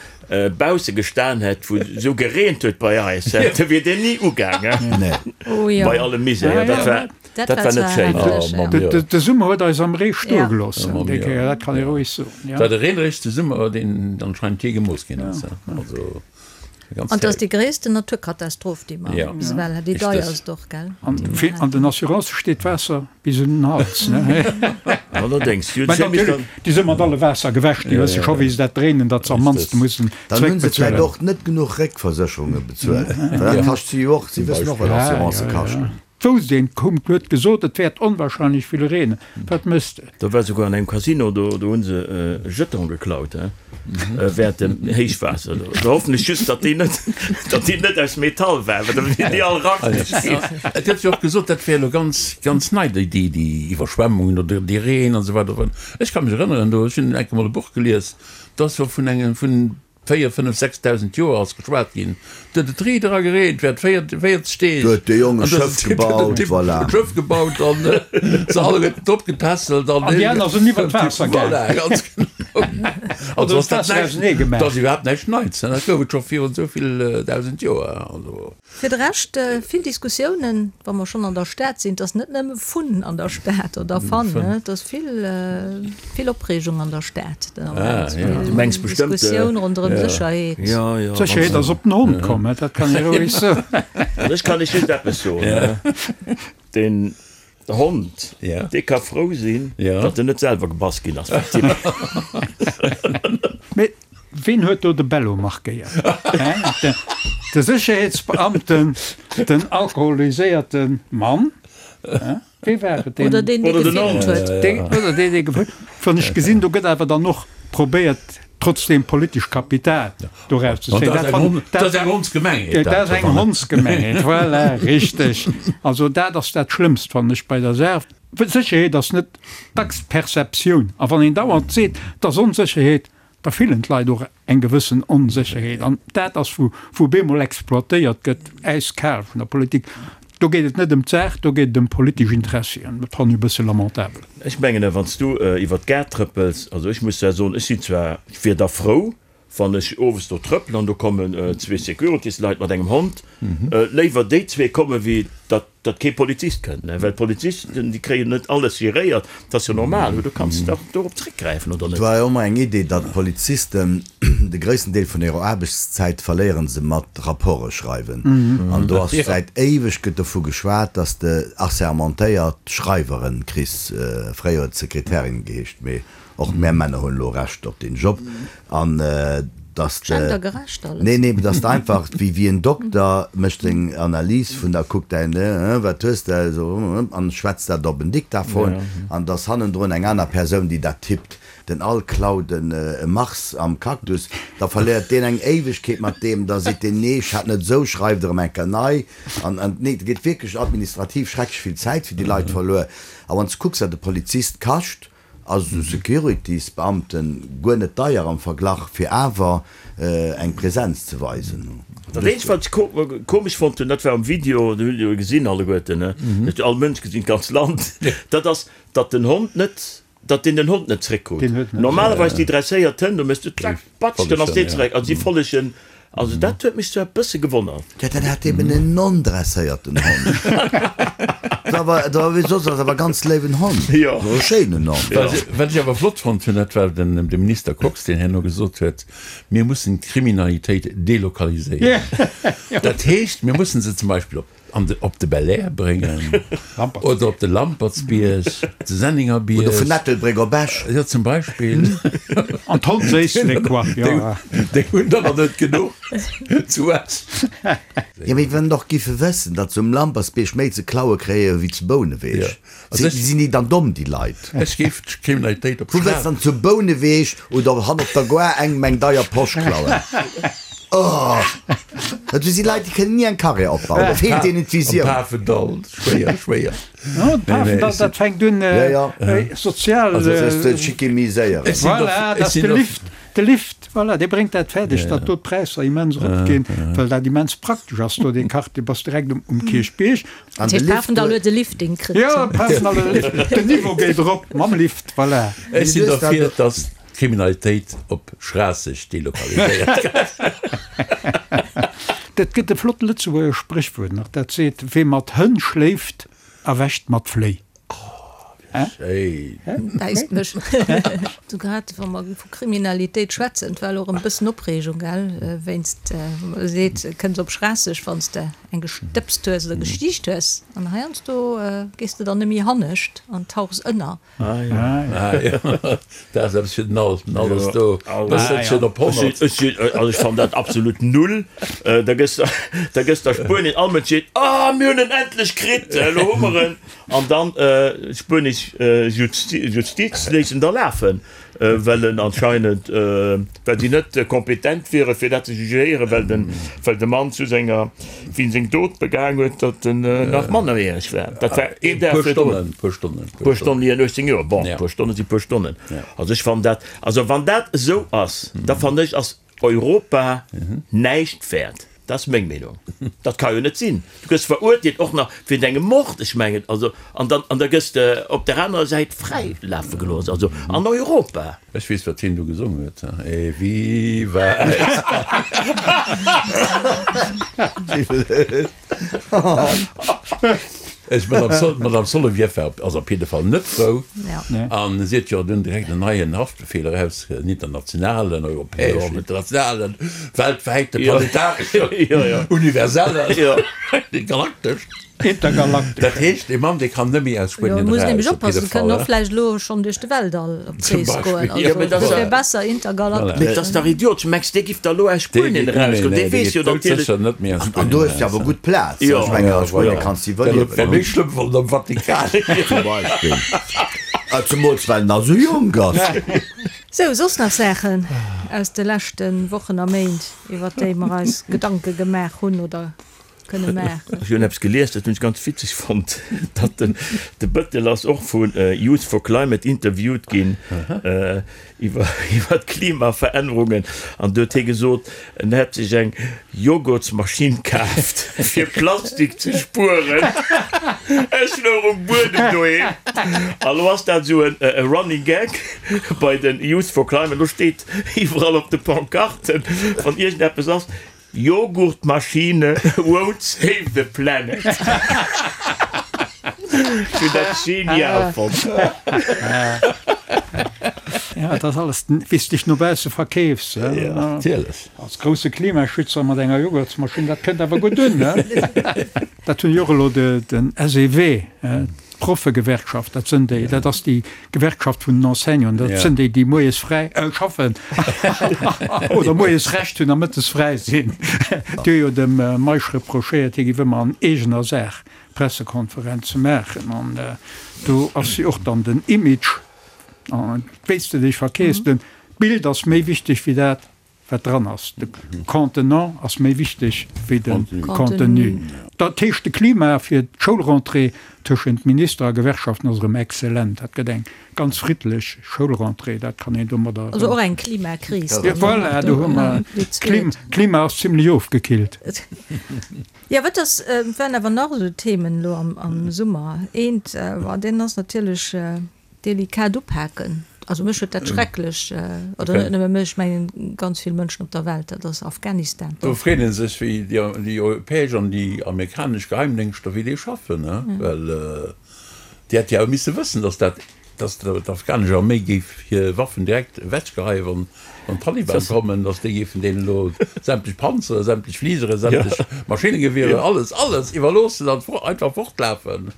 bausse gestan hätt, wou et esou gereent huet bei eis, da wier deen ni ugaangen. Nee. Oh jo. Bei allem Misär, dat war, Dat dat war war net zwar schéin. heftig, Oh, Mamm, ja. jo. De Summer huet eis am Ree stoe Ja. gelooss, Oh, Mamm, déi jo. Kéier, dat kann ee roueg soen, ja. War de reeneregste Summer, deen anscheinend jee gemooss ginn ass. Also. An 't ass déi gréissten Naturkatastroph, déi mer bis ewell hat, déi deierst och, gell? An den Assurancë steet d'Waasser bis un den Hals, ne? Allerdéngs. Mä natierlech, déi si mat alle Waasser gewäsch, déi wësse scho wéi se dat dréinen, datt se am mannste mussen Dann hunn se vläicht zréckbezuelen. och net genuch Réckversécherunge bezuelt, well dat kascht si jo och, si wëssen och wat Assurancë kaschten. Wousst een, koum, huet gesot, et wäert onwahrscheinlech vill reenen. Wat méchs de? Do war souguer an engem Casino, do do hu se e Jeton geklaut, he, während dem Héichwaasser. Do hoffen ech just, datt déi net, datt déi net aus Metall war, well da wieren déi all rackeg ginn. Et gëtt jo och gesot, dat wär elo ganz, ganz nei, déi, déi, déi Iwwerschwemmungen oder dee Reen an esou weider. Ech ka mech erënneren, do, ech hunn enke mol e Buch gelies, do ass jo vun engem, vun 4, 5, 6.000 Joer ass geschwat ginn. Do huet et riit era gereent während 40 Deeg. Do huet de Jong e An do Schëff gebaut, huet voilà. e Schëff gebaut an se alleguerten drop getässelt an An déi aner sinn iwwer d'Waasser gaang. Voilà, ganz genau. Also Oder ass dat d'Waasser näischt, ausenee dat ass gemaach. iwwerhaapt näischt Neits, dat gouf et scho virun esou vill 1.000 Joer. Also. Fir de Rescht vill Diskussiounen, wa mer schonn an der Stad sinn. Et ass net nëmme Fun an der Stad oder Fun, et ass vill, vill Opreegung an der Stad den Ament. Du mengs bestëmmt. Diskussioun ronderëm Sécherheet. D'Sécherheet ass op den Hond komm, dat kann ee roueg soen. An ech kann lech just eppes soen, deen. Hond, dee ka frou sinn, datt en net selwer gebass ginn ass vum Typ. Mee ween huet do de Bello markéiert? De Sécherheetsbeamten, den alkoholiséierte Mann? Wee war et? Oder deen, dee gefilmt huet. Oder deen, dee gefilmt huet. Wann ech gesinn, do gëtt awer dann och probéiert, trotzdem politesch Kapital doraus ze zéien. Dat ass eng Hondsgemengheet. Dat ass eng Hondsgemengheet, voilà, richteg. Also dat ass dat Schlëmmst, fannen ech, bei der Saach. Sécherheet ass net dacks Perceptioun. A wann een dauernd seet, et ass Onsécherheet, da fillen d'Leit och eng gewëssen Onsécherheet. An dat ass, wou wou bemol exploitéiert gëtt, äiskal vun der Politik. Do geet et net ëm d'Saach, do geet et ëm politesch Interessien. Dat fannen ech e bësse lamentabel. Ech mengen, wann s du iwwer d'Gare trëppels, also ech muss zwar soen, ech sinn zwar, ech wier da frou, wann ech owes do trëppelen an do kommen zwee Securitysleit mat engem Hond, léiwer déi zwee komme wéi datt datt kee Polizist kënnt, well d'Polizisten, déi kréien net alles geréiert, dat ass jo normal, du kanns dach dorop zréckgräifen, oder Et net? war jo ëmmer eng Idee, datt d'Polizisten de gréissten Deel vun hirer Aarbechtszäit verléiere se mat Rapporte schreiwen. An do ass säit éiweg gëtt dovu geschwat, datt s de assermentéiert Schreiweren kriss, fréier huet et Sekretärin geheescht, mee och mär Männer hunn elo Recht op deen Job, An dass de, Gendergerecht alles. nee, nee, dass de einfach wéi, wéi en Dokter mécht seng Analys vun der, kuckt däin, wat hues de, esou, an schwätzt dat op en Diktaphon, an dass hannendrun eng aner Persoun, déi dat tippt. Den Al klaut en e Mars am Cactus, da verléiert deen eng Éiwegkeet mat deem, da seet deen, nee, ech hat net esou, schreift erëm eng Kéier nei. An, an, nee, et geet wierklech administrativ schrecklech vill Zäit fir déi Leit verluer. A wann s de kucks, wat e Polizist kascht, Ass esou Securities-Beamten guer net deier am Verglach, fir awer eng Präsenz ze weisen. Dat eenzegt wat ech komesch fonnt hunn, dat war am Video, dat hutt Dir jo gesinn alleguerten, ne, dat huet all Mënsch gesinn, d'ganz Land, dat ass, datt den Hond net, datt deen den Hond net zréckkrut. Normalerweis déi dresséiert Hënn, do méchs du zack, patsch, dann ass deen zeréck. Also si follegen Also dat huet mech zwar e bësse gewonnert. Jo, dat hat eben en non-dresséierten Hond. Dat war, dat war wéi soss, ass awer ganz léiwen Hond. Jo. E schéinen Hond. Jo. Wat ech awer flott fonnt hunn, dat war den de Minister Kox, deen herno gesot huet, mir mussen d'Kriminalitéit delokaliséieren. Dat heescht, mir mussen se zum Beispill op An de op de Belair bréngen oder op de Lampertsbierg, de Sennengerbierg. Oder vun Ettelbréck op Esch. Jo, zum Beispill. An d'Hondséisslek, quoi, jo. Déi hunn der nach net genuch zu Esch. Jo, mee wann och giffe wëssen, datt se um Lampertsbierg méi ze klaue kréie wéi zu Bouneweg. Sinn déi dann domm, déi Leit? Ech géif d'Kriminalitéit op Wou wëlls dann zu Bouneweg oder hanner op der Gare engem eng deier Posch klauen? Oh! Dat si Leit, déi kënnen ni eng Karriär opbauen. Da feelt deenen d'Visioun. Am Pafendall, schwéier, schwéier. No, de Pafendall, dat fänkt un, sozial. Also, sech ze schickimiséieren. Voilà, dat ass de Lift. De Lift, voilà, dee bréngt dat fäerdeg, datt do d'Präisser immens eropginn, well dat immens praktesch ass do, dee Quartier. Bass direkt um Kierchbierg. An Dat de heescht, Lift Pafendall huet e Lifting kritt. Jo, Pafendall huet e Lift. Den Niveau geet erop mam Lift, voilà. Ech sinn derfir, datt d'Kriminalitéit op Schraasseg delokaliséiert gëtt. Dat gëtt e flott Lëtzebuerger Spréchwuert nach, dat seet, Wee mat Hënn schléift, erwächt mat Fléi. Schéin. Bäisst mech. Du grad wa mer vu Kriminalitéit schwätzen, et war elo erëm e bëssen Opreegung, gell, wéinst, wou mer seet, kënns op Schraasseg, wann s de eng gestëbst hues oder gestiicht hues, an heiansdo gees de dann nëmme hannescht an tauchs ënner. Ah jo, dat ass eppes fir den Al. Den Al ass do e bësselchen op 100. Ech sinn, also ech fannen dat absolut null. Da gëss de, da gëss de a Spuenien, all Mënsch seet, Ah, mir hunn en endlech kritt, elo hu mer en. An dann d'spuenesch Justiz léisst en da lafen, well en anscheinend, well si net kompetent wiere fir dat ze jugéieren, well den, well de Mann zu senger, wéi en seng Dot begaang huet, datt en nach mannerjäreg war. Dat war een Dag Puer Stonnen, puer Stonnen. Puer Stonnen, hien 18 Joer. Bon, puer Stonne si puer Stonnen. Also ech fannen dat, also wann dat esou ass, da fannen ech ass Europa näischt wäert. Dat ass meng Meenung. Dat ka jo net sinn. Du gëss verurteelt, och nach wéint engem Mord, ech mengen, also, an dann, an da gëss de op der anerer Säit fräi lafe gelooss, also an Europa. Ech weess, wat hien do gesongen huet, E viva España! Ech, Madame Sol, d'Madame Solovieff war op, ass op jidde Fall net frou. An si huet jo dunn direkt en neien Haftbefehl eraus, en internationalen, europäeschen, internationalen, weltwäiten, planetareschen, universellen, galakteschen. Intergalaktesch. Dat heescht, dee Mann, dee kann net méi aus Jo, Spuenien muss eraus, nämlech op jidde oppassen, Fall, kënnen och he? vläicht elo schonn duerch de Weltall op Zum d'Rees goen. Beispill, Also mee dat ass dofir ja- besser Voilà. intergalaktesch. Mee dat ass dach idiotesch. Mengs dee giff da elo aus Dee Spuenien geet net méi, erausgoen? nee, Dee dee weess geet jo natierlech. doudsécher net méi aus An Spuenien do hues de eraus, awer he? gutt Plaz. Jo. Ech mengen, Ja, a Spuenien voilà. kanns de Dat wär iwwerliewen. méi schlëmm wann am Vatikan. Zum Beispill. Zemools well en nach esou jonk ass. Sou, soss nach Saachen aus de leschte Wochen a Méint, iwwer déi mer eis Gedanke gemaach hunn oder kënne maachen? Ech hunn eppes gelies, dat hunn ech ganz witzeg fonnt, datt den de Bëttel ass och vu Youth for Climate interviewt ginn iwwer iwwer d'Klimaverännerungen an do huet hie gesot, en hätt sech eng Joghurtsmaschinn kaaft fir Plastik ze spueren. Ech louch um Buedem doheem a lo ass dat esou e Running Gag bei den Youth for Climate. Lo steet iwwerall op de Pancarten, wann iergendeppes ass, Joghurtmaschine won't save the planet. Ech hunn dat genial fonnt. Ja, dat ass alles, wéi s dech no bausse verkeefs. Ja, natierlech. Als grousse Klimaschützer mat enger Joghurtsmaschinn, dat kënnt awer gutt un, ne? Dat hunn jo och elo den SEW, d'Proffegewerkschaft, dat sënn déi, dat ass déi Gewerkschaft vun den Enseignanten, dat sënn déi, déi moies fräi schaffen oder moies Recht hunn a mëttes fräi sinn. Déi hu jo dem Meisch reprochéiert, hie géif ëmmer an eegener Saach Pressekonferenze maachen. An do ass jo och dann den Image, wéi s de dech verkeefs, den Bild ass méi wichteg wéi dat, wat dran ass. De Contenant ass méi wichteg wéi de Contenu. Dat heescht, de Klima fir d'Schoulrentrée tëschent Minister a Gewerkschaften ass erëm excellent. Dat gëtt eng ganz friddlech Schoulrentrée, dat kann een domadder. Also och eng Klimakris. Voilà, do hu mer, d'Klima ass zimlech ofgekillt. Jo, wat ass, waren awer nach esou Themen elo am Summer. Eent, deen ass natierlech Delikat upaken. Also mech huet dat schrecklech, oder net nëmme mech, ech mengen ganz vill Mënschen op der Welt, dat ass Afghanistan. Do freet ee sech, wéi déi europäesch an déi amerikanesch Geheimdéngschter, wéi déi schaffen, well déi hätte jo awer misse wëssen, datt dat, datt d'afghanesch Arméi géif hir Waffen direkt ewechgeheien, wann d'Taliban kommen, datt déi géifen deenen elo sämtlech Panzere, sämtlech Fligere, sämtlech Maschinnengewierer, alles, alles iwwerloossen an einfach fortlafen.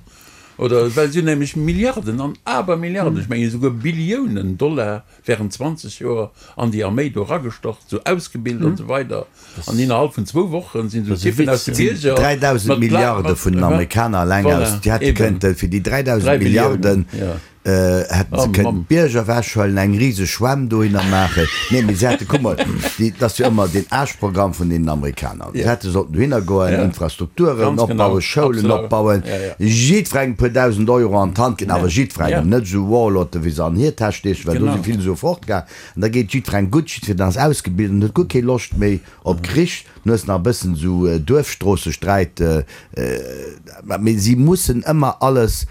Oder well si hunn nämlech Milliarden an Abermilliarden, ech mengen esouguer Billiounen Dollar während 20 Joer an déi Arméi do eragestach, sou ausgebilt an esou weider. An innerhalb vun zwou Wochen sinn esou Typen aus de Bierger 3.000 mat Milliarde vun den Amerikaner eleng Voilà, aus, déi hätte eben. kënnten, fir déi 3.000 3 Milliarden Billiounen, jo. hätten se Oh kënnen Mamm. d'Bierger ewechhuelen, eng riseg Schwämm dohinner maachen. Nee, mee se hätte, kuck mol, déi, dat ass jo ëmmer deen Aarschprogramm vun deenen Amerikaner. Se Ja. hätte sollten dohinner goen, Ja. Infrastrukturen Ganz opbauen, genau. Schoulen Absolut. opbauen, Ja, ja. jiddwerengem e puer 1.000 Euro an d'Hand ginn, awer Ja. jiddwerengem, Ja. net esou Warlorden, wéi se an hir Täsch steechen, well do Genau. si vill esou fortgaang. An da geet jiddwerengem gutt, jiddwereen ass ausgebilt an huet guer keng Loscht méi op Krich. Du hues nach e bëssen esou Duerfstroossesträit, mee si mussen ëmmer alles,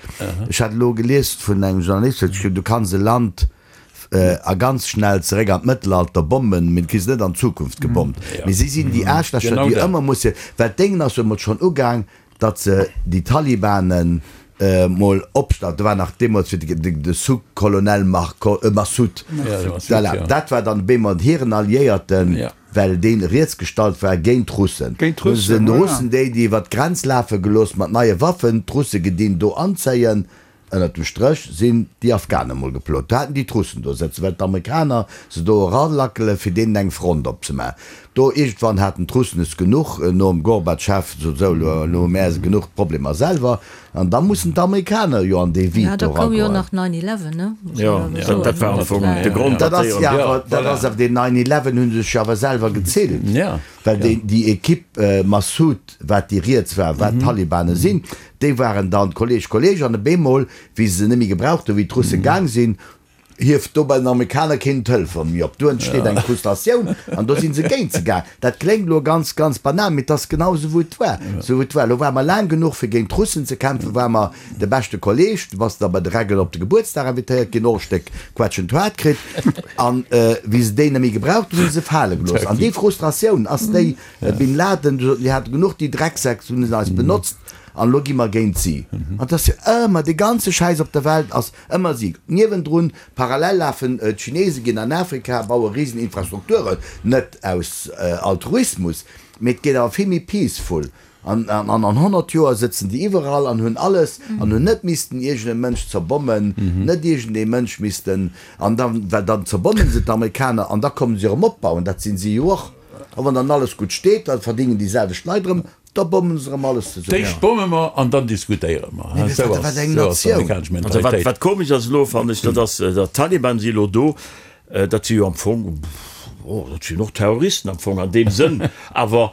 ech hat elo gelies vun engem Journalist, huet geschriwwen, du kanns e Land a ganz schnell zeréck an d'Mëttelalter bommen, mee du kriss et net an d'Zukunft gebommt. Mee si sinn déi Aarschlächer, déi ëmmer musse, well d'Déngen ass jo emol schonn ugaang, datt se déi Talibanen mol opstallt, do war nach deemools fir de Sous-Colonel Massoud, voilà, dat war dann bemol hiren Alliéierten, well dee riets gestallt war géint d'Russen. Hu se den Russen déi, déi iwwer d'Grenz lafe gelooss mat neie Waffen, d'Russe gedinn do anzéien. Ënnert dem Stréch sinn déi Afghanen mol geplot. Do haten déi d'Russen do sëtzen, well d'Amerikaner se do eralackelen, fir deenen eng Front opzemaachen. Do iergendwann haten d'Russen es genuch, nom Gorbatschew, sot esou, elo elo hu mär genuch Problemer selwer. An da mussen d'Amerikaner jo an dee Ja, Vide da do koum jo eragoen. nach Nine Eleven, ne? Muss Jo, een awer soen, dat war am Fong dat de war. Grond, Dat datt ass déi jo an. awer, dat ass awer deen Nine Eleven hu sech jo awer selwer gezillt, well déi déi Equipe Massoud, wat déi riets war, wat d'Talibane sinn, Déi waren dann Kolleg, Kolleg, an op eemol, wéi se se net méi gebraucht hunn, wéi d'Russe gaang sinn, hieft do bei den Amerikaner keen den Telefon méi op. Do entsteet eng Frustratioun an do si se géint se gaang. Dat kléngt elo ganz, ganz banal, mee et ass genau esou, wou et war. Esou wou et war. Elo ware mer laang genuch, fir géint d'Russen ze kämpfen, ware mer de beschte Kolleg. Du bass da bei de Reggel op de Gebuertsdag invitéiert ginn, och e Stéck Quetschent haart kritt. An wéi se déi net méi gebraucht hunn, hu se se fale gelooss. An déi Frustratioun ass déi, Bin Laden, du soten, déi hate genuch, déi Drecksäck, se hunn eis benotzt an elo gi mer géint si. An et ass jo ëmmer, dee ganze Schäiss op der Welt ass ëmmer si. Niewendrun, parallel lafen d'Chinesen, ginn an Afrika, baue risen Infrastrukturen, net aus Altruismus, mee et geet awer vill méi peaceful. An an 100 Joer sëtzen déi iwwerall an hunn alles an hunn net missten iergend e Mënsch zerbommen, net iergend ee Mënsch missten, an dann, well dann zerbommen se d'Amerikaner an da kommen se erëm opbauen, dat sinn si jo och. A wann dann alles gutt steet, da verdingen déi selwecht Leit erëm, da bommen se erëm alles zesummen. D'éischt bomme mer an dann diskutéiere mer. Mee Esou wat ass eng Natioun! d'amerikanesch Mentalitéit. Wat komesch ass elo, fannen ech, dat ass, datt d'Taliban si elo do, dat si jo am Fong, oh, dat sinn och Terroristen am Fong an deem Sënn, awer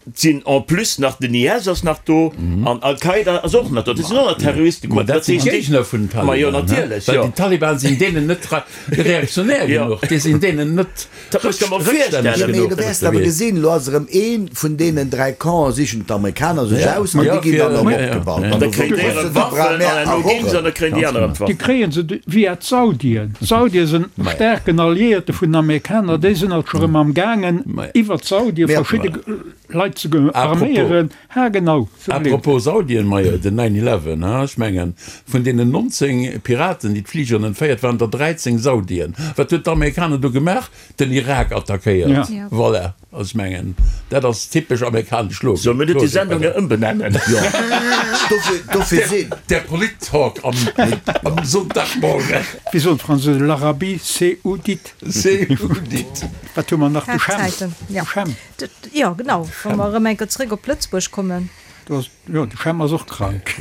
Et sinn en plus nach, den IS ass nach do an Al-Qaida ass och nach do. Dat sinn och nach Terroristegruppen. Ma dat sinn d'Géigner vun den Ma jo, Taliban, natierlech, well jo. déi Taliban sinn deenen net reaktionär genuch, déi sinn deenen net Dat muss der mol rëckstänneg virstellen. Mee genuch. du wäers awer gesinn, elo ass erëm ee vun deenen 3 Campen, sichen d'Amerikaner sech aus an déi ginn dann erëm opgebaut. An da kréien déi erëm Waffen an herno ginn se an da kréien déi aner erëm Déi Waffen. kréie se via d'Saudien. D'Saudie sinn staarken Alliéierte vun den Amerikaner, déi sinn alt scho rëm am gaangen iwwer d'Saudie verschidde Leit ze arméieren. Ha genau, sou blöd. Apropos Saudien, majo den Nine Eleven, ha ech mengen vun deenen 19 Piraten déi d'Fligeren entféiert waren der 13 Saudien. Wat huet d'Amerikaner do gemaach? Den Irak attackéiert. Voilà, also ech mengen dat ass typesch amerikanesch Logik. Solle mir net déi Sendung nach ëmbenennen? Jo, dofir sinn. Der Polit-Talk am Sonntagmorgen. Wéi soen d'Fransousen, l'Arabie Saoudite. Saoudite. Wat hu mer nach? De Chem. Zäiten, ja. De Chem. Jo, genau. Wa mer erëm eng Kéier zréck op Lëtzebuerg kommen. Do ass, jo, de Chem ass och krank.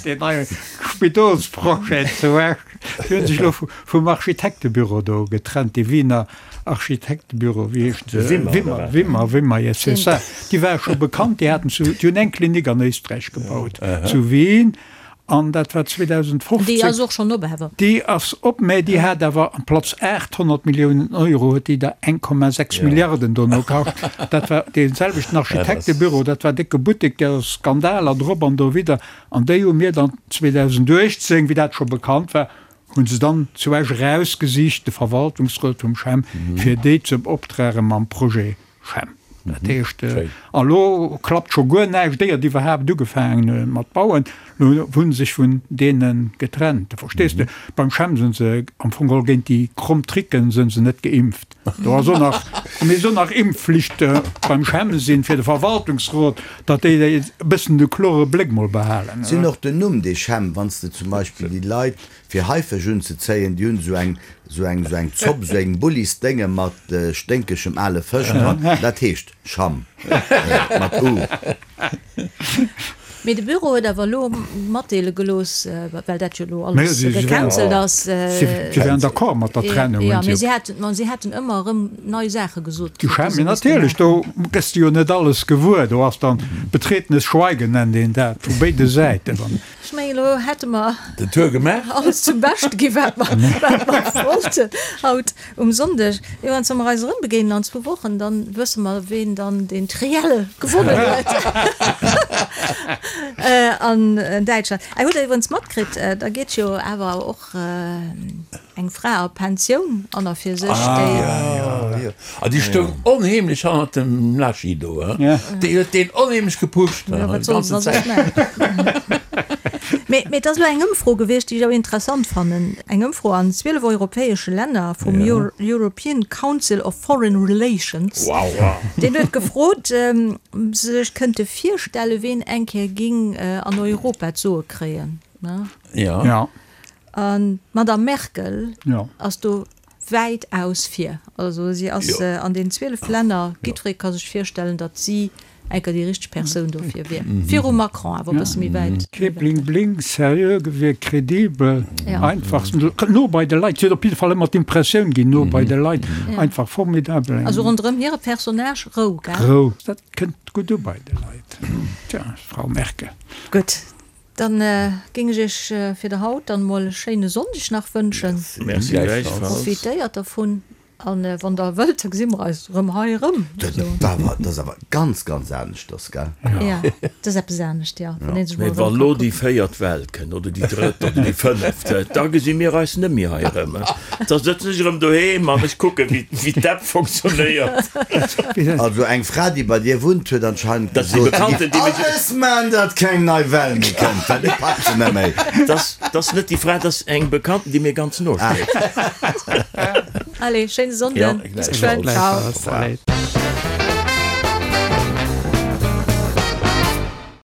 Deen neie Spidolsprojet zu Esch. Déi hu sech elo vum Architektebüro do getrennt, dee Wiener Architektebüro, wéi heescht se? Wimmer, oder wat? Wimmer, Wimmer, yes, c'est ça. Déi ware scho bekannt, déi haten zu, déi hunn eng Klinik an Éisträich gebaut, zu Wien. An dat war 2015. Déi ass och schonn op awer. Déi ass op, mä déi hat awer amplaz 800 Milliounen Euro huet déi der 1,6 Milliarden dono kascht. Dat war dee selwechten Architektebüro, dat war décke Buttek, der Skandaler drop an dowidder. An déi hu mir dann 2018, wéi dat scho bekannt war, hu se dann zu Esch erausgesicht, de Verwaltungsrot vum CHEM, fir déi ze beoptrage mam Projet Schem. Dat heescht, a lo klappt scho guer näischt, éiert iwwerhaapt ugefaangen hu mat bauen, lo hu se sech vun deene getrennt. Verstees de? Beim Chem sinn se am Fong geholl géint déi kromm Tricken sinn se net geimpft. Do ass och nach, mir och nach Impfflicht beim Chem sinn, fir de Verwaltungsrot, datt déi e bëssen de klore Bléck mol behalen. Sinn och den Numm dee Chem, wann s de zum Beispill déi Leit Fir Haifësch unzezéien, déi hunn esou eng, esou eng, esou eng Zopp, esou eng Bullisdénge mat sténkegem ale Fësch dran. Dat heescht Schamm mat u. Mee de Büro huet awer elo matdeele gelooss, well dat jo elo alles gecancelt ass. Si wären d'accord mat der Trennung, hunn si. Jo, mee si haten, ma si haten ëmmer erëm nei Saache gesot kritt. Mee natierlech, do gëss de jo net alles gewuer. Do ass dann betretenes Schweigen, nennt een dat, vu béide Säiten. Ech mengen, elo hätte mer Den Tour gemaach. alles zum Beschte gi wat mer, wat mer wollten haut um Sonndeg. Jo, an wa mer eis erëm begéinen an zwou Wochen, dann wësse mer, ween dann deen Triell gewonnen huet an Däitschland. Hutt Der iwwerens matkritt, da geet jo awer och Eng Fra a Pensioun an a fir sech, déi. Ah jo, a déi stoung onheemlech hannert dem Laschi do, he? Déi huet deen onheemlech gepusht, he? Jo, wat soll se da soss maachen? Mee, mee et ass elo eng Ëmfro gewiescht, déi ech awer interessant fannen. Eng Ëmfro an 12 europäesche Länner vum European Council of Foreign Relations. Deen huet gefrot, ob se sech kënnte virstellen, ween eng Kéier géing an Europa d'Soe kréien, ne? Jo. An d'Madame Merkel ass do wäitaus vir. Also si ass an den 12 Länner, jiddweree ka sech virstellen, datt si enker déi richteg Persoun dofir wier. Virum Macron, awer e bësse méi wäit. Kee Bling Bling, seriö gewierkt, kredibel, einfach, no bei de Leit. Si huet op jidde Fall ëmmer d'Impressioun ginn, no bei de Leit, einfach formidabel. Also ronderëm hire Personnage Rou, gell? Rou, dat kënnt gutt u bei de Leit. Tja, Frau Merkel. Gutt, Dann géing ech iech fir de haut dann mol e schéine Sonndeg nach wënschen. Merci gläichfalls. Profitéiert dervun an wann der wëllt, da gesi mer eis erëm hei erëm. Dat ass awer ganz, ganz aneschters, gell? Jo, dat ass eppes anescht, jo. Wann een sech mol Mee erëm wa ka lo déi kucken. véiert Well kënnt, oder déi drëtt oder déi fënneft, da gesi mir eis net méi hei erëm. Da sëtzen ech erëm doheem an ech kucken, wéi d'App fonctionnéiert. Also eng Fra déi bei dir wunnt huet anscheinend Dat si gesot, si Bekannten, giff déi mech. alles man datt keng nei Well méi kënnt, well et packt se net méi. Dat ass net déi Fra, dat ass eng Bekannten, déi mir ganz no steet. Allez, schéine Jo, Sonnden, bis geschwënn, ciao. Gläichfalls.